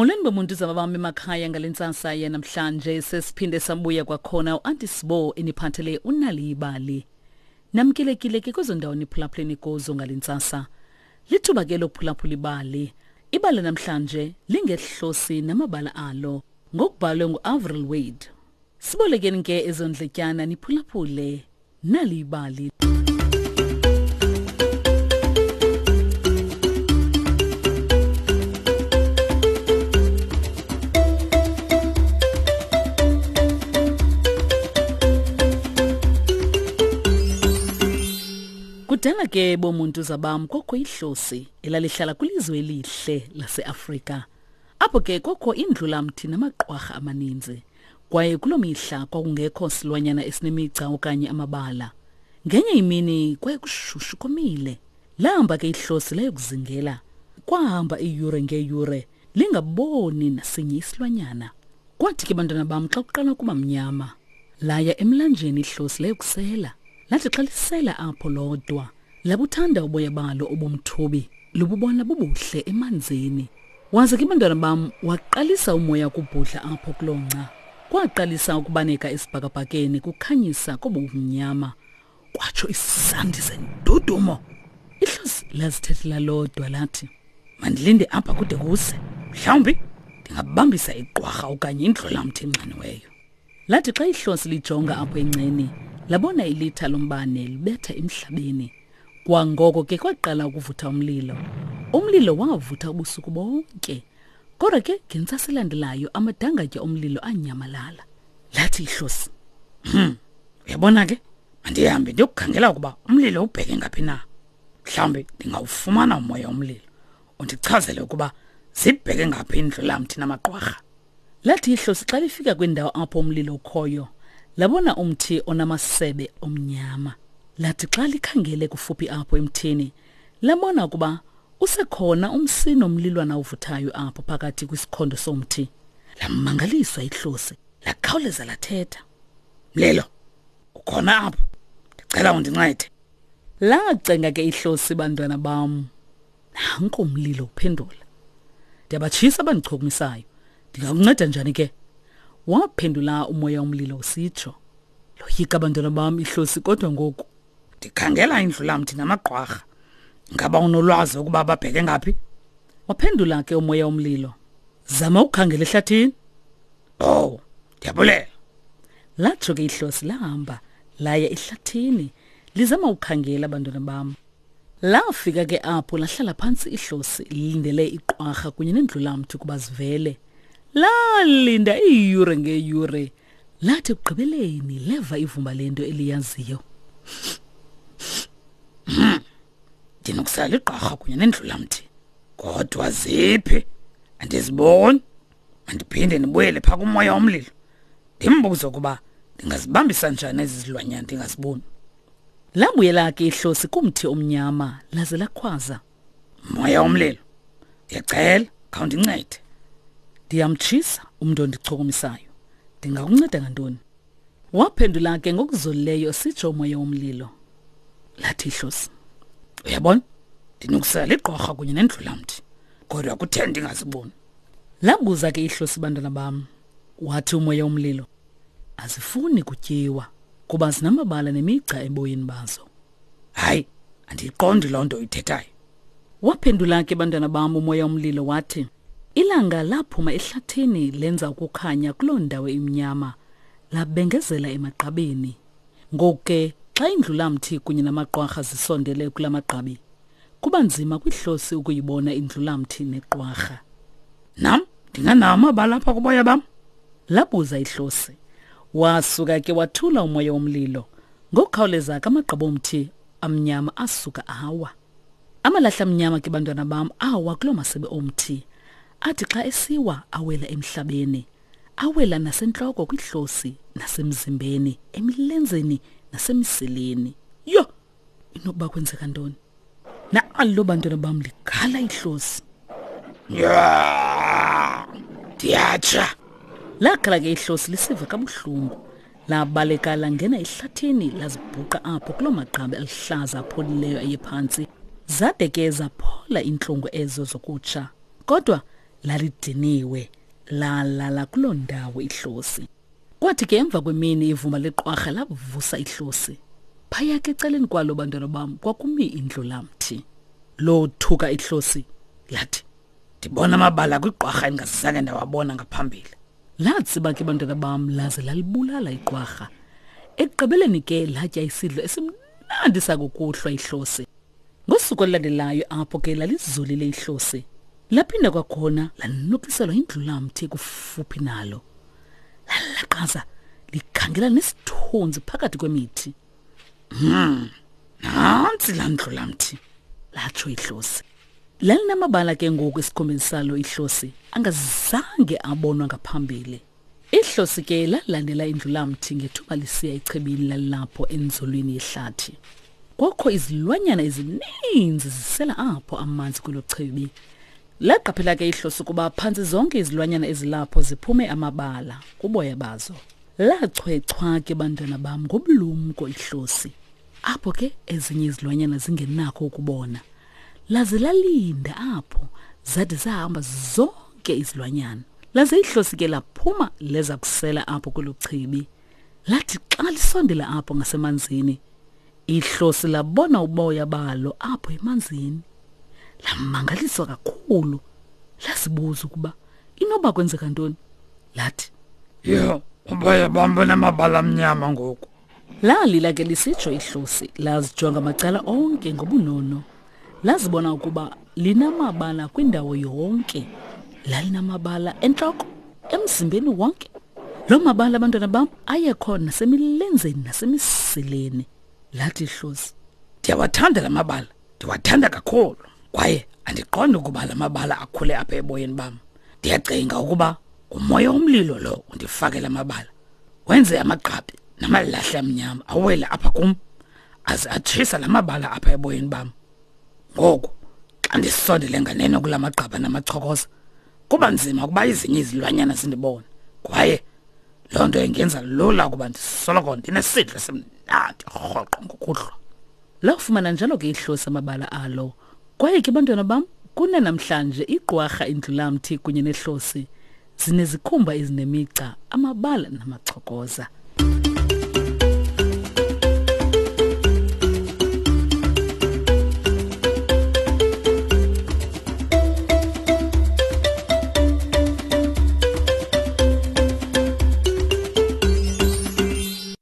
Molweni bomuntu zababami emakhaya ngale ntsasa yanamhlanje sesiphinde sabuya kwakhona uAnti Sibo eniphathele unali ibali. Namkelekile ke kwezo ndawo niphulaphuleni kuzo ngale ntsasa. Lithuba ke lokuphulaphula ibali. Ibali namhlanje lingehlosi namabala alo ngokubhalwe nguAvril Wade. Sibolekeni ke ezondletyana niphulaphule nali ibali. Kudala ke bomuntu zabam kokho ihlosi elalihlala kwilizwe elihle laseAfrika. Apho ke kokho indlulamthi namaqwarha amaninzi. Kwaye kuloo mihla kwakungekho silwanyana esinemigca okanye amabala. Ngenye imini kwaye kushushu komile. Lahamba ke ihlosi layokuzingela. Kwahamba iiyure ngeeyure lingaboni nasinye isilwanyana. Kwathi ke bantwana bam xa kuqala ukuba mnyama, laya emlanjeni ihlosi layokusela. Lathi xa lisela apho lodwa, Labuthanda uboya balo obumthubi, lububona bubuhle emanzini. Waze ke bantwana bam waqalisa umoya ukubhudla apho kuloo ngca. Kwaqalisa ukubaneka esibhakabhakeni kukhanyisa kobumnyama. Kwatsho isandi sendudumo. Ihlosi lazithethela lodwa lathi, Mandilinde apha kude kuse. Mhlawumbi ndingabambisa iqwarha okanye indlolamthi enxaniweyo. Lathi xa ihlosi lijonga apho engceni, labona ilitha lombane libetha emhlabeni. Kwangoko ke kwaqala ukuvutha umlilo. Umlilo wavutha ubusuku bonke. Kodwa ke ngentsasa elandelayo amadangatya omlilo anyamalala. Lathi ihlosi, "Hmm, uyabona ke, mandihambe ndiyokukhangela ukuba umlilo ubheke ngaphi na. Mhlawumbi ndingawufumana umoya omlilo undichazele ukuba zibheke ngaphi indlulamthi namaqwarha." Lathi ihlosi xa lifika kwindawo apho umlilo ukhoyo, labona umthi onamasebe omnyama. Lathi xa likhangele kufuphi apho emthini, labona ukuba usekhona umsi nomlilwana ovuthayo apho phakathi kwisikhondo somthi. Lamangaliswa ihlosi, lakhawuleza lathetha. Mlilo, ukhona apho? Ndicela undincede. Lacenga ke ihlosi bantwana bam. Nanko umlilo uphendula. Ndiyabatshisa abandichukumisayo. Ndingakunceda njani ke? Waphendula umoya umlilo usitsho. Loyika abantwana bam ihlosi kodwa ngoku. Ndikhangela indlulamthi namagqwarha. Ngaba unolwazi ukuba babheke ngaphi? Waphendula ke umoya umlilo. Zama ukukhangela ehlathini. Oh, ndiyabulela. Latsho ke ihlosi lahamba laya ehlathini lizama ukukhangela abantwana bam. Lafika ke apho lahlala phantsi ihlosi lilindele iqwarha kunye nendlulamthi ukuba zivele. Lalinda iiyure ngeeyure. Lathi ekugqibeleni leva ivumba lento eliyaziyo. Hmm. Ndinokusala igqarha kunye nendlulamthi. Kodwa ziphi? Andiziboni. Mandiphinde ndibuyele phaa kumoya womlilo. Ndimbuze ukuba ndingazibambisa njani ezi zilwanyana ndingaziboni. Labuyela ke ihlosi kumthi omnyama laze lakhwaza. Moya womlilo, ndiyacela khawundincede. Ndiyamtshisa umntu ondichukumisayo. Ndingakunceda ngantoni? Waphendula ke ngokuzolileyo sitsho umoya womlilo. Lathi ihlosi, uyabona, ndinokusela ligqorha kunye nendlulamthi, kodwa kuthe ndingaziboni. Labuza ke ihlosi bantwana bam. Wathi umoya womlilo, azifuni kutyiwa kuba zinamabala nemigca eboyeni bazo. Hayi, andiyiqondi loo nto uyithethayo. Waphendula ke bantwana bam umoya omlilo wathi, ilanga laphuma ehlathini lenza ukukhanya kuloo ndawo imnyama, labengezela emagqabini. Ngoku ke xa indlulamthi kunye namaqwarha zisondele kula magqabi, kuba nzima kwihlosi ukuyibona indlulamthi neqwarha. Nam ndinganawo amabala apha kuboya bam? Labuza ihlosi. Wasuka ke wathula umoya womlilo. Ngokukhawuleza ke amagqabo omthi amnyama asuka awa. Amalahle amnyama ke bantwana bam awa kuloo masebe omthi. Athi xa esiwa awela emhlabeni. Awela nasentloko kwihlosi, nasemzimbeni, emilenzeni nasemisileni. Yho! Inokuba kwenzeka ntoni? Nalo bantwana bam ligala ihlosi. Ndiyatsha. Lagala ke ihlosi lisiva kabuhlungu. Labaleka langena ehlathini lazibhuqa apho kuloo magqabi aluhlaza apholileyo ayephantsi. Zade ke zaphola iintlungu ezo zokutsha. Kodwa Lalidiniwe, lalala kuloo ndawo ihlosi. Kwathi ke emva kwemini ivumba leqwarha lavusa ihlosi. Phaya ke ecaleni kwalo bantwana bam kwakumi indlulamthi. Lothuka ihlosi lathi, Ndibona amabala kwiqwarha endingazange ndawabona ngaphambili. Latsiba ke bantwana bam laze lalibulala iqwarha. Ekugqibeleni ke latya isidlo esimnandi sakukuhlwa ihlosi. Ngosuku olulandelayo apho ke lalizolile ihlosi. Laphinda kwakhona lanukiselwa indlulamthi kufuphi nalo. Lalaqaza likhangela nesithunzi phakathi kwemithi. Nantsi laa ndlulamthi, latsho ihlosi. Lalinamabala ke ngoku esikhombeni salo ihlosi angazange abonwa ngaphambili. Ihlosi ke lalandela indlulamthi ngethuba lisiya echibini lalilapho enzulwini yehlathi. Kwakho izilwanyana ezininzi zisela apho amanzi kwelo chibi. Laqaphela ke ihlosi ukuba phantsi zonke izilwanyana ezilapho ziphume amabala kuboya bazo. Lachwechwa ke bantwana bam ngobulumko ihlosi. Apho ke ezinye izilwanyana zingenakho ukubona. Laze lalinda apho zade zahamba zonke izilwanyana. Laze ihlosi ke laphuma leza kusela apho kwelo chibi. Lathi xa lisondela apho ngasemanzini, ihlosi labona uboya balo apho emanzini. Lamangaliswa kakhulu. Lazibuza ukuba inoba kwenzeka ntoni. Lathi, Yho, uboya bam bunamabala amnyama ngoku. Lalila ke lisitsho ihlosi, lazijonga macala onke ngobunono. Lazibona ukuba linamabala kwindawo yonke. Lalinamabala entloko, emzimbeni wonke. Loo mabala, abantwana bam, ayekhona nasemilenzeni nasemisileni. Lathi ihlosi, Ndiyawathanda la mabala, ndiwathanda kakhulu. Kwaye andiqondi ukuba la mabala akhule apha eboyeni bam. Ndiyacinga ukuba ngumoya womlilo lo undifake la mabala. Wenze amagqabi namalahle amnyama awele apha kum, aze atshisa la mabala apha eboyeni bam. Ngoku xa ndisondele nganeno kula magqaba namachokoza, kuba nzima ukuba ezinye izilwanyana zindibone, kwaye loo nto ingenza lula ukuba ndisoloko ndinesidlo esimnandi rhoqo ngokuhlwa. Lafumana njalo ke ihlosi amabala alo. Kwaye ke bantwana bam, kunanamhlanje igqwarha indlulamthi kunye nehlosi zinezikhumba ezinemigca, amabala namachokoza.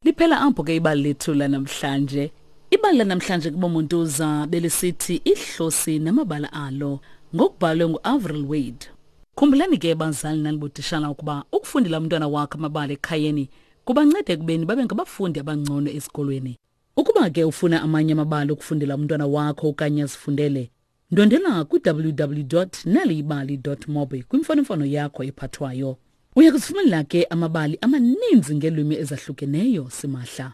Liphela apho ke ibali lethu lanamhlanje. Ibali lanamhlanje kubomontuza belisithi ihlosi namabala alo ngokubhalwe nguAvril Wade. Khumbulani ke bazali nanibotishala ukuba ukufundela umntwana wakho amabali ekhayeni kubanceda ekubeni babe ngabafundi abangcono esikolweni. Ukuba ke ufuna amanye amabali okufundela umntwana wakho okanye azifundele, ndwendela kwi-www.naliyibali.mobi kwimfonomfono yakho ephathwayo. Uya kuzifumanela ke amabali amaninzi ngeelwimi ezahlukeneyo simahla.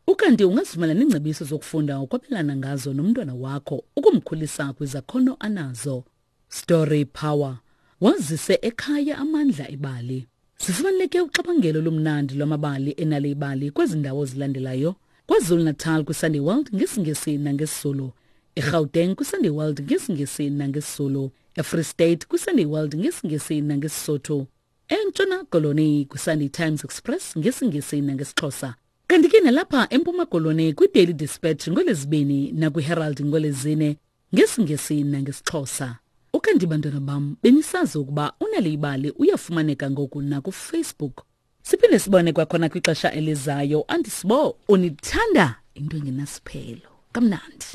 Ukanti ungazifumana neengcebiso zokufunda ukwabelana ngazo nomntwana wakho ukumkhulisa kwizakhono anazo. Story Power. Wazise ekhaya amandla ebali. Sifumaneke uxabangelo lomnandi lwamabali enale ibali kwezi ndawo zilandelayo. KwaZulu-Natal kwiSunday World ngesiNgesi nangesiZulu. EGauteng kwiSunday World ngesiNgesi nangesiZulu. EFree State kwiSunday World ngesiNgesi nangeSisotho. ENtshona Koloni kwiSunday Times Express ngesiNgesi nangesiXhosa. Kanti ke nalapha eMpuma Koloni kwiDaily Dispatch ngolwezibini nakwiHerald ngolwezine ngesiNgesi nangesiXhosa. Ukanti bantwana bam benisazi ukuba uNal'ibali uyafumaneka ngoku nakuFacebook. Siphinde sibone kwakhona kwixesha elizayo. Andisibo unithanda into engenasiphelo. Kamnandi.